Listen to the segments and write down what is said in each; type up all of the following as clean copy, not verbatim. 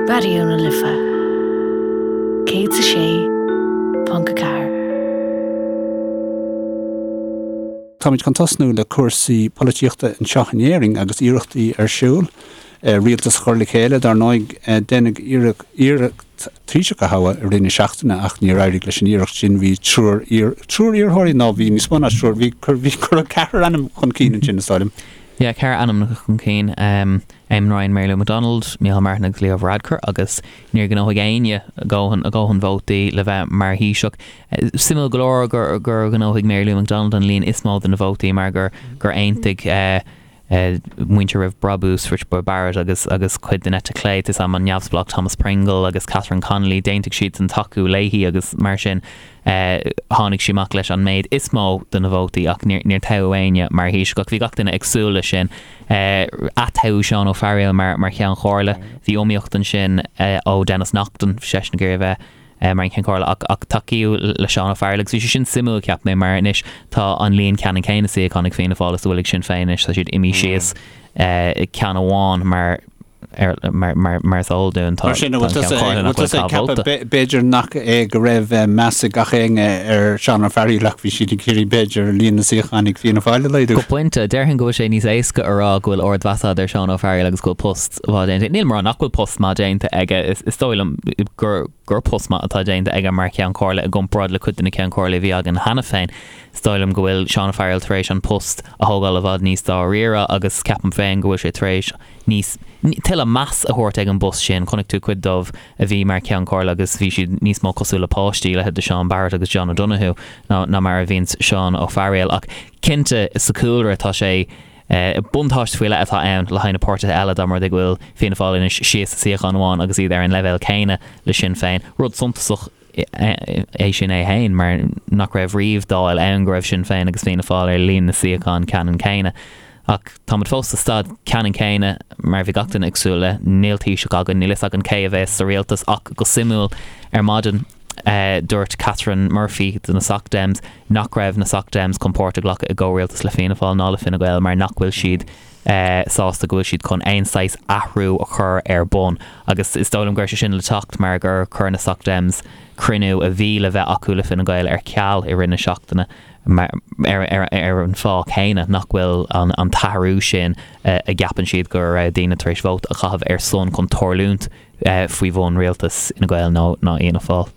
Raidió na Life 106.4. Táimid chun tosnú le cúrsaí polaitíochta anseo in Éirinn agus iarrachtaí ar siúl rialtas a chur le chéile. Dar ndóigh, deineadh iarracht Taoiseach a thoghadh i rith na seachtaine ach níor éirigh leis an iarracht sin. Bhí triúr triúr iarrthóirí, nó bhí níos mó ná triúr, bhí cuireadh ceathrar ainm chun cinn ansin, is dóigh liom. Yeah, ceathrar ainmneacha chun cinn, Eamon Ryan, Mary Lou McDonald, Micheál Martin agus Leo Varadkar agus níor ghnóthaigh éinne a dhóthain, a dhóthain vótaí le bheith mar Thaoiseach. Suimiúil go leor gur, gur ghnóthaigh Mary Lou McDonald an líon is mó de na vótaí mar gur, gur aontaigh muintir Roimh Brabús, Richard Boyd Barrett agus, agus cuid den eite chlé, tá a fhios agam, an neamhspleách Thomas Pringle agus Catherine Connolly, d'aontaigh siadsan tacú léi agus mar sin. Tháinig sí amach leis an méid is mó de na vótaí ach níor toghadh éinne mar Thaoiseach ach bhí gach duine ag súil leis sin. Atoghadh Seán Ó Fearghaíl mar Cheann Comhairle. Bhí iomaíocht ansin ó Denis Naughten, bhí seisean ag iarraidh a bheith mar an Cheann Comhairle ach ach tacaíodh le Seán Ó Fearghaíl agus bhí sé sin suimiúil cheap mé mar anois tá an líon ceannann céanna suíochán ag Fianna Fáil is a bhfuil ag Sinn Féin anois, tá siad imithe síos ceann amháin mar Mar is eol dúinn, tá Mar sin, an bhfuil tusa ag ceapadh b'fhéidir nach é go raibh meas ag gach éinne ar Seán Ó Fearghaíl ach bhí siad ag iarraidh b'fhéidir líon na suíochán ag Fianna Fáil a laghdú? Go pointe, déarfainn go bhfuil sé níos éasca a rá go bhfuil ardmheas agat ar Seán Ó Fearghaíl agus go bhfuil post mhaith déanta. Nílim ag rá nach bhfuil post maith déanta aige, is dóigh liom gur gur post maith atá déanta aige mar Cheann Comhairle i gcomparáid le cuid de na Ceann Comhairle a bhí againn cheana féin. Is dóigh liom go bhfuil Seán Ó Fearghaíl tar éis an post a thógáil i bhfad níos dáiríre agus ceapaim féin go bhfuil sé tar éis níos, tuilleadh meas a thabhairt ag an bpost sin. Chonaic tú cuid dóibh a bhí mar Cheann Comhairle agus bhí siad níos mó cosúil le páistí, leithéid de Seán Barrett agus John O'Donoghue, ná ná mar a bhíonns Seán Ó Fearghaíl. Ach cinnte, sa chúlra tá sé, buntáiste faoi leith atá ann le haghaidh na páirtithe eile dá mba rud é go bhfuil Fianna Fáil anois síos suíochán amháin agus iad ar an leibhéal céanna le Sinn Féin. Rud suntasach. é sin é féin, mar nach raibh riamh Dáil ann go raibh Sinn Féin agus Fianna Fáil ar líon na suíochán ceannann céanna. Ach táimid fós sa staid ceannann céanna mar a bhí gach duine ag súil le. Níl Taoiseach againn, níl fhios againn cé a bheas sa rialtas ach go suimiúil ar maidin dúirt Catherine Murphy de na Soc Dems nach raibh na Soc Dems chun páirt a ghlacadh i gcomhrialtas le Fianna Fáil ná le Fine Gael mar nach bhfuil siad sásta go bhfuil siad chun aon saghas athrú a chur ar bun agus is dóigh liom go raibh sé sin le teacht mar gur chuir na Soc Dems cruinniú a bhí le bheith acu le Fine Gael ar ceal i rith na seachtaine ar an fáth céanna nach bhfuil an t-athrú sin a gceapann siad go raibh daoine tar éis vóta a chaitheamh ar son chun tarlúint faoi bhun rialtas Fhine Gael nó Fhianna Fáil.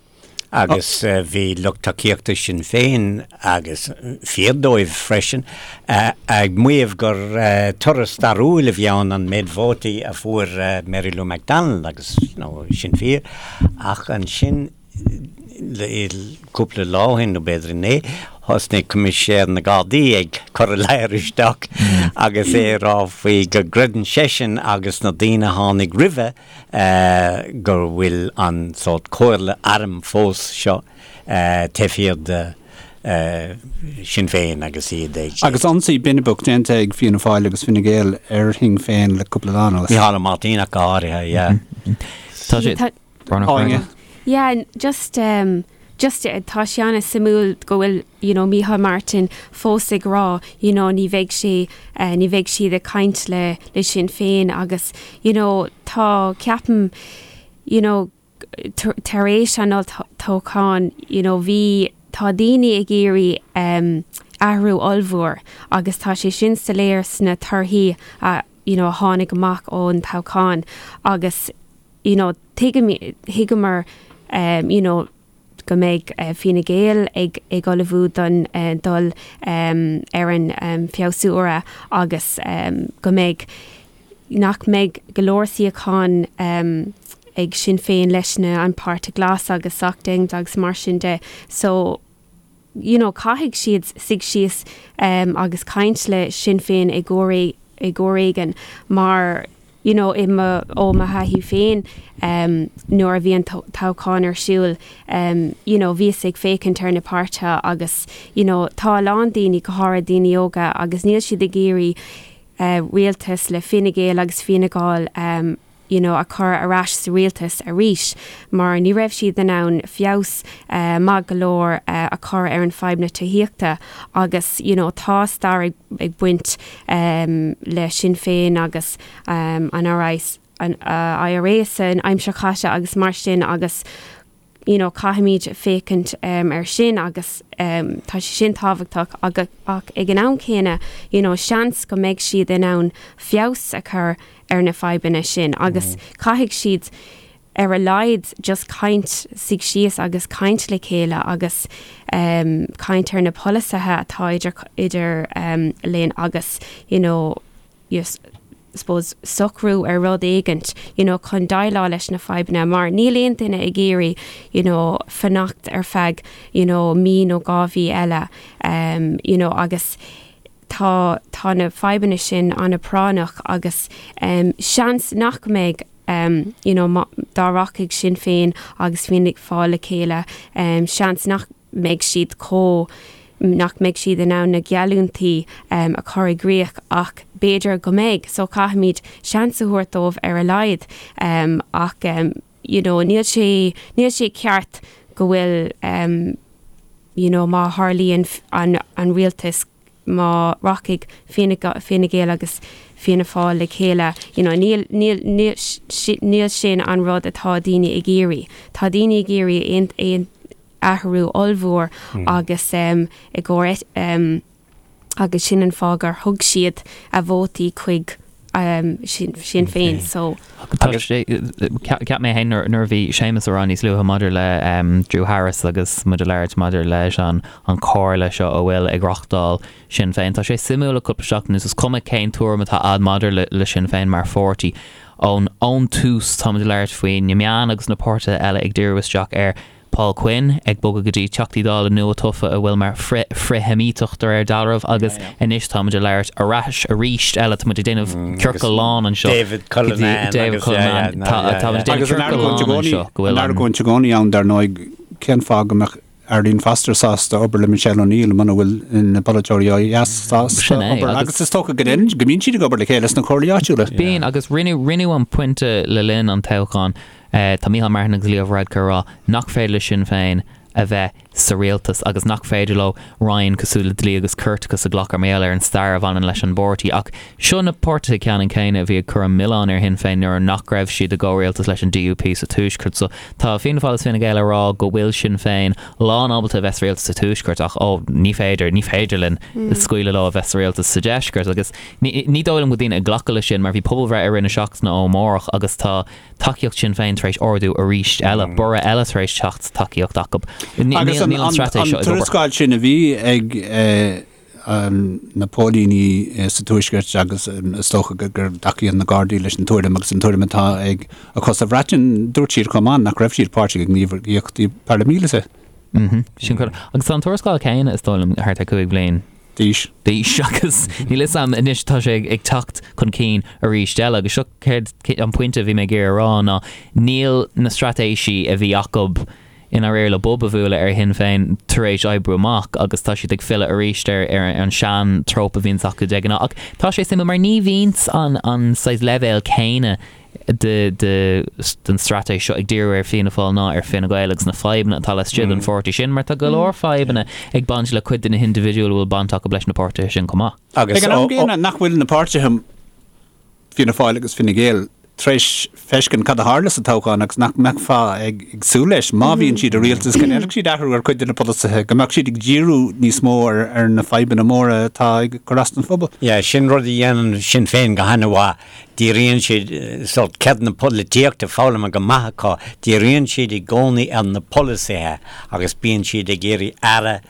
Agus bhí lucht tacaíochta Sinn Féin, agus fíor dóibh freisin, ag maíomh gur toradh stairiúil a bhí ann an méid vótaí a fuair Mary Lou McDonald agus you know sin fíor ach ansin cúpla lá ó shin nó b'fhéidir inné thosnaigh Coimisinéir na Gardaí ag cur a ladhar isteach agus é ag rá faoi go gcreideann seisean agus na daoine a tháinig roimhe go bhfuil an sórt comhairle airm fós seo taobh thiar de Sinn Féin agus iad ag. Agus ionsaí binibeach déanta ag Fianna Fáil agus Fine Gael ar Shinn Féin le cúpla lá anuas. Micheál Ó Máirtín ach go háirithe, yeah. Tá sé. Áine. Yeah, just, just tá sé an-suimiúil go bhfuil you know Micheál Martin fós ag rá you know ní bheidh sé ní bheidh siad ag caint le le Sinn Féin agus you know tá ceapaim you know tar éis an olltoghcháin you know bhí tá daoine ag iarraidh um, athrú ollmhór agus tá sé sin soiléir sna torthaí a you know a tháinig amach ón toghchán agus you know tuigim thuigeamar um, you know go mbeidh Fine Gael ag ag ullmhú don dul ar an bhfreasúra agus go mbeidh nach mbeidh go leor suíochán ag Sinn Féin leis na an Páirtí Glas agus Soc Dems agus mar sin de. So you know caithfidh siad suigh síos agus caint le Sinn Féin i gcomhair i gcomhair éigin mar you know i mo ó mo thaithí féin nuair a bhí an toghchán ar siúl you know bhíos ag féachaint ar na páirtithe agus you know tá a lán daoine go háirithe daoine óga agus níl siad ag iarraidh rialtas le Fine Gael agus Fianna Gall you know a chur ar ais sa rialtas arís mar ní raibh siad in ann feabhas maith go leor a chur ar an fadhb na tithíochta agus you know tá stair ag baint le Sinn Féin agus an RI. an IRA san aimsir chaite agus mar sin agus you know caithfimid féachaint ar sin agus tá sé sin tábhachtach ach ag an am céanna you know seans go mbeidh siad in ann feabhas a chur ar na fadhbanna sin agus caithfidh siad ar a laghad just caint, suigh síos agus caint le chéile agus caint ar na polasaithe atá idir idir linn agus you know suppose socrú ar rud éigint you know chun déileáil leis na fadhbanna mar níl aon duine ag iarraidh you know fanacht ar feadh you know mí nó 2 mhí eile you know agus tá tá na fadhbanna sin an-phráinneach agus seans nach mbeidh you know dá rachaidh Sinn Féin agus Fianna Fáil le chéile seans nach mbeidh siad chomh nach mbeidh siad in ann na geallúintí a chur i gcrích ach b'fhéidir go mbeidh so caithfimid seans a thabhairt dóibh ar a laghad ach you know níl sé níl sé ceart go bhfuil you know má tharlaíonn an an rialtas má rachaidh Fine Gael agus Fianna Fáil le chéile, you know, níl, níl, níl, níl sin an rud atá daoine ag iarraidh. Tá daoine ag iarraidh aon, aon athrú ollmhór agus um, i gcomhair um, agus sin an fáth gur thug siad a vótaí chuig um, Sinn, Sinn Féin. So. Tá sé, cheap mé féin nuair a bhí Séamus ag rá níos luaithe maidir le Drew Harris agus muid ag labhairt maidir leis an an comhairle seo a bhfuil ag reachtáil Sinn Féin. Tá sé suimiúil le cúpla seachtain anuas, is cuma cén tuairim atá a'd maidir le le Sinn Féin mar pháirtí. Ón ón tús táimid ag labhairt faoi na meáin agus na páirtithe eile ag díriú isteach ar Paul Quinn ag bogadh go dtí Teachtaí Dála nua-tofa a bhfuil mar frith-Sheimíteach de réir dealraimh agus anois táimid ag labhairt ar ais arís eile, táimid ag déanamh ciorcal lán anseo. David Cullinane. David Cullinane. Táimid ag déanamh ciorcal lán anseo go bhfuil an. An argóint i gcónaí ann dar ndóigh, cén fáth go mbeadh Arlene Foster sásta obair le Michelle O'Neill muna bhfuil na polaiteoirí ó dheas sásta obair agus is dócha go go mbíonn siad ag obair le chéile sna comhairlí áitiúla. Bíonn agus rinneadh an pointe le linn an toghcháin Tá Micheál Martin agus Leo Varadkar ag rá nach féidir le Sinn Féin a bheith sa rialtas agus nach féidir leo roinn cosúil le Dlí agus Ceartachas a ghlacadh mar gheall ar an stair a bhaineann leis an bpáirtí. Ach seo na páirtithe ceannann céanna a bhí ag cur an milleán ar Shinn Féin nuair nach raibh siad i gcomhrialtas leis an DUP sa Tuaisceart. So tá Fianna Fáil agus Fine Gael ag rá go bhfuil Sinn Féin lán ábalta a bheith sa rialtas sa Tuaisceart ach ó ní féidir, ní féidir linn scaoileadh leo a bheith sa rialtas sa Deisceart. Agus ní dóigh liom go bhfuil daoine ag glacadh leis sin mar bhí pobalbhreith i rith na seachtaine ó amárach agus tá tacaíocht Sinn Féin tar éis ardú arís eile, borradh eile tar éis teacht sa tacaíocht acu. Agus an tuarascáil sin a bhí ag na póilíní sa Tuaisceart agus is dócha go dtacaíonn na Gardaí leis an tuairim agus an tuairim atá ag acu sa Bhreatain, dúirt siad chomh maith nach raibh siad páirteach i ngníomhaíochtaí paraimíleata. Sin agus tá an tuarascáil céanna is dóigh liom thart ar 5 bhliain. d'aois. d'aois agus níl fhios a'm anois tá sé ag teacht chun cinn arís eile agus seo céard an pointe a bhí mé ag iarraidh a rá ná níl na straitéisí a bhí acu i ndáiríre le bob a bhualadh ar Shinn Féin tar éis oibriú amach agus tá siad ag filleadh arís ar ar an sean trope a bhíonns acu de ghnáth ach tá sé suimiúil mar ní bhíonns an an saghas leibhéal céanna de den straitéis seo ag díriú ar Fianna Fáil ná ar Fine Gael agus na fadhbanna atá laistigh den pháirtí sin, mar tá go leor fadhbanna ag baint le cuid de na hindibhidiúil a bhfuil baint acu leis na páirtithe sin chomh maith. Ag an am gcéanna, nach bhfuil na páirtithe, Fianna Fáil agus Fine Gael, tar éis feiscint cad a tharla sa toghchán agus nach mbeifeá ag súil leis, má bhíonn siad i rialtas, go ndéanfadh siad athrú ar chuid de na polasaithe, go mbeadh siad ag díriú níos mó ar na fadhbanna móra atá ag cur as don phobal. Yeah, sin rud a dhéanann Sinn Féin go han-mhaith. Díríonn siad, sórt ceird na polaitíochta foghlamtha go maith acu, díríonn siad i gcónaí ar na polasaithe agus bíonn siad ag iarraidh aire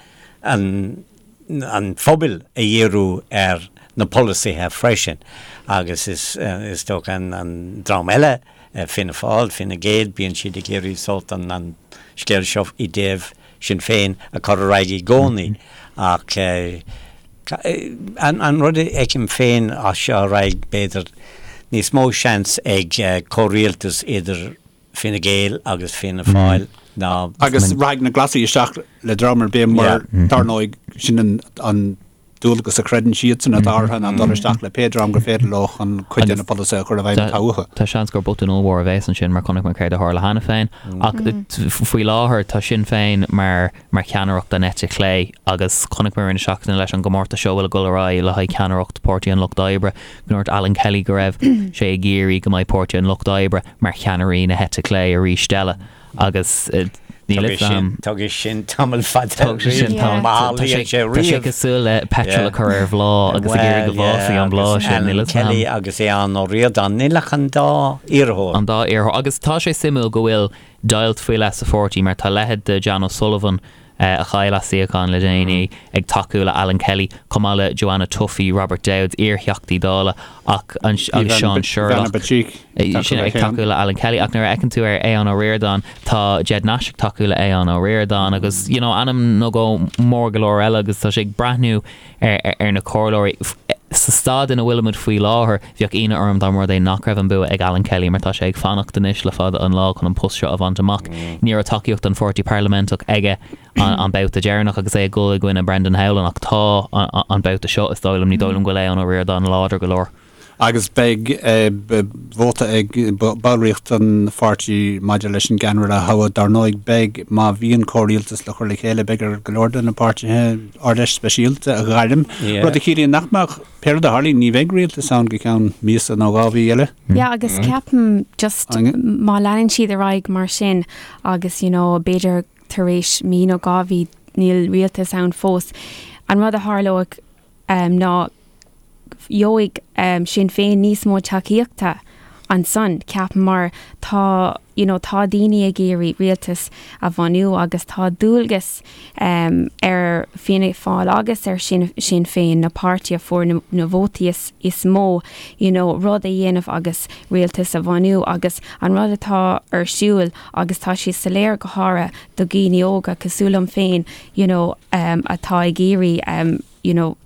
an an phobail a dhíriú ar na polasaithe freisin. Agus is is dócha an an dream eile, Fianna Fáil, Fine Gael, bíonn siad ag iarraidh sórt an an scéal seo i dtaobh Sinn Féin a chur ar aghaidh i gcónaí ach an rud a fheicim féin as seo ar aghaidh, b'fhéidir níos mó seans ag comhrialtas idir Fine Gael agus Fianna Fáil ná. Agus rachaidh na Glasaigh isteach le dream ar bith mar, dar ndóigh, sin an. dualgas a chreideann siadsan atá orthu ná dul isteach le pé dream gur féidir leo chun cuid de na polasaithe a chur i bhfeidhm atá uathu. Tá seans gur botún ollmhór a bheas ansin mar chonaic muid céard a tharla cheana féin. Ach faoi láthair tá Sinn Féin mar mar cheannaireacht an eite chlé agus chonaic muid i rith na seachtaine leis an gcomórtas seo a bhfuil ag dul ar aghaidh le haghaidh ceannaireacht Páirtí an Lucht Oibre go ndúirt Alan Kelly go raibh sé ag iarraidh go mbeidh Páirtí an Lucht Oibre mar cheannairí na heite clé arís eile agus níl a fhios agam. Tógfaidh sin tamall fada. Tógfaidh sin tamall. Tá sé tá sé cosúil le petrol a chur ar bhláth agus ag iarraidh go bhfásfaidh an bláth sin. Níl a fhios agam. Kelly agus Aodhán Ó Ríordáin, níl ach an dá iarrthóir. An dá iarrthóir. Agus tá sé suimiúil go bhfuil deighilt faoi leith sa pháirtí mar tá leithéid de Jan O'Sullivan, a chaill a suíochán le déanaí, ag tacú le Alan Kelly, chomh maith le Joanna Tuffy, Robert Dowds, iar-Theachtaí Dála, ach agus Seán Sherlock, sin ag tacú le Alan Kelly. Ach nuair a fheiceann tú ar Aodhán Ó Ríordáin, tá Ged Nash ag tacú le Aodhán Ó Ríordáin agus you know ainm nó dhó mór go leor eile agus tá sé ag breathnú ar na comhairleoirí. Sa staid ina bhfuilimid faoi láthair, bheadh ionadh orm dá mba rud é nach raibh an bua ag Alan Kelly mar tá sé ag fanacht anois le fada an lá chun an post seo a bhaint amach. Ní raibh tacaíocht an pháirtí parlaiminteach aige an babhta deireanach agus é ag dul i gcoinne Brendan Howlin ach tá an babhta seo, is dóigh liom, ní dóigh liom go bhfuil Aodhán Ó Ríordáin láidir go leor. Agus beidh vóta ag ballraíocht an pháirtí maidir leis an gceannaire a thoghadh. Dar ndóigh, beidh, má bhíonn comhrialtas le cur le chéile, beidh ar go leor de na páirtithe Ard-Fheis speisialta a ghairm, rud a chiallaíonn nach mbeadh, pé rud a tharlaíonn, ní bheidh rialtas ann go ceann míosa nó 2 mhí eile. Yeah, agus ceapaim just má leanann siad ar aghaidh mar sin agus, you know, b'fhéidir tar éis mí nó 2 mhí níl rialtas ann fós, an rud a tharlóidh ná gheobhaidh Sinn Féin níos mó tacaíochta ansan, ceapaim, mar tá, you know, tá daoine ag iarraidh rialtas a bhunú agus tá dualgas ar Fianna Fáil agus ar Sinn Féin, na páirtí a fuair na, na vótaí is, is mó, you know, rud a dhéanamh agus rialtas a bhunú agus an rud atá ar siúl agus tá sé soiléir go háirithe do dhaoine óga cosúil liom féin, you know, atá ag iarraidh, you know,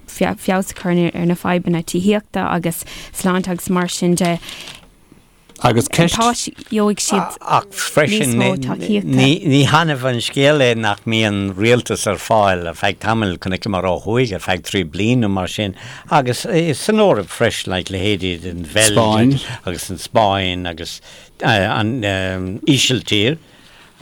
feabhas a chur ar na fadhbanna tithíochta agus sláinte agus mar sin de. Agus ceist. Tá, gheobhaidh siad Ach freisin, níos mó tacaíochta. ní hannamh an scéal é nach mbíonn rialtas ar fáil ar feadh tamaill, chonaiceamar ó thuaidh ar feadh trí bliana nó mar sin, agus san Eoraip freisin, like leithéidí den Bheilg agus an Spáinn agus an Ísiltír.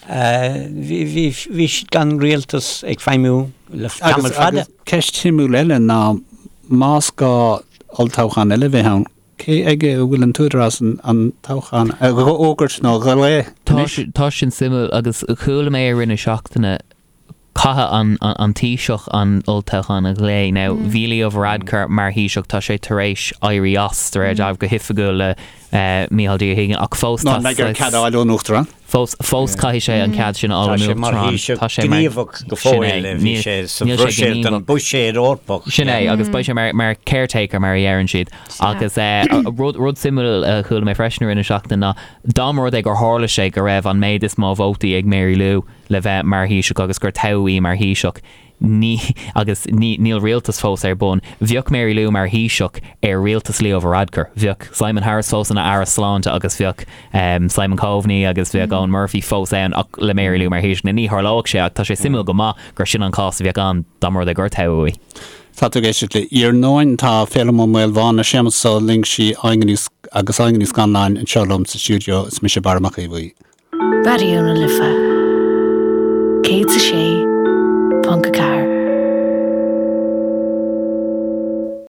Bhí siad gan rialtas ag feidhmiú le tamall fada. Agus ceist shuimiúil eile ná más gá olltoghchán eile a bheith ann, cé aige a bhfuil an t-údarás an toghchán a fhógairt nó a ghlaoch anois? Tá sin suimiúil agus chuala mé i rith na seachtaine Caithfidh an Taoiseach an olltoghchán a ghlaoch. Now, bhí Leo Varadkar mar Thaoiseach, tá sé tar éis éirí as, de réir dealraimh, go hoifigiúil le Micheál D. Ó hUiginn, ach fós tá Nó an mbeidh air cead a fháil ón Uachtarán? Fós, fós caithfidh sé an cead sin a fháil ón Uachtarán. Tá sé mar Thaoiseach gníomhach go fóill, bhí sé sa Bhruiséil don Buiséad Eorpach. Sin é, agus beidh sé mar caretaker, mar a dheireann siad. Agus rud, rud suimiúil a chuala mé freisin i rith na seachtaine ná, dá mba rud é gur tharla sé go raibh an méid is mó vótaí ag Mary Lou, le bheith mar Thaoiseach agus gur toghadh í mar Thaoiseach, ní, agus ní, níl rialtas fós ar bun. Bheadh Mary Lou mar Thaoiseach ar rialtas Leo Varadkar. Bheadh Simon Harris fós ina Aire Sláinte agus bheadh Simon Coveney agus bheadh Eoghan Murphy fós ann ach le Mary Lou mar Thaoiseach. Now ní tharlóidh sé ach tá sé suimiúil go maith gur sin an cás a bheadh ann dá mba rud é gur toghadh í. Tá tú ag éisteacht le Iarnóin. Tá Féilim Ó Maolmhána, Séamus Ó Loingsigh, Áine Ní agus Áine Ní Scanláin anseo liom sa stiúideo. Is mise Barra Mac Aodha Bhuí. Raidió na Life 106.4.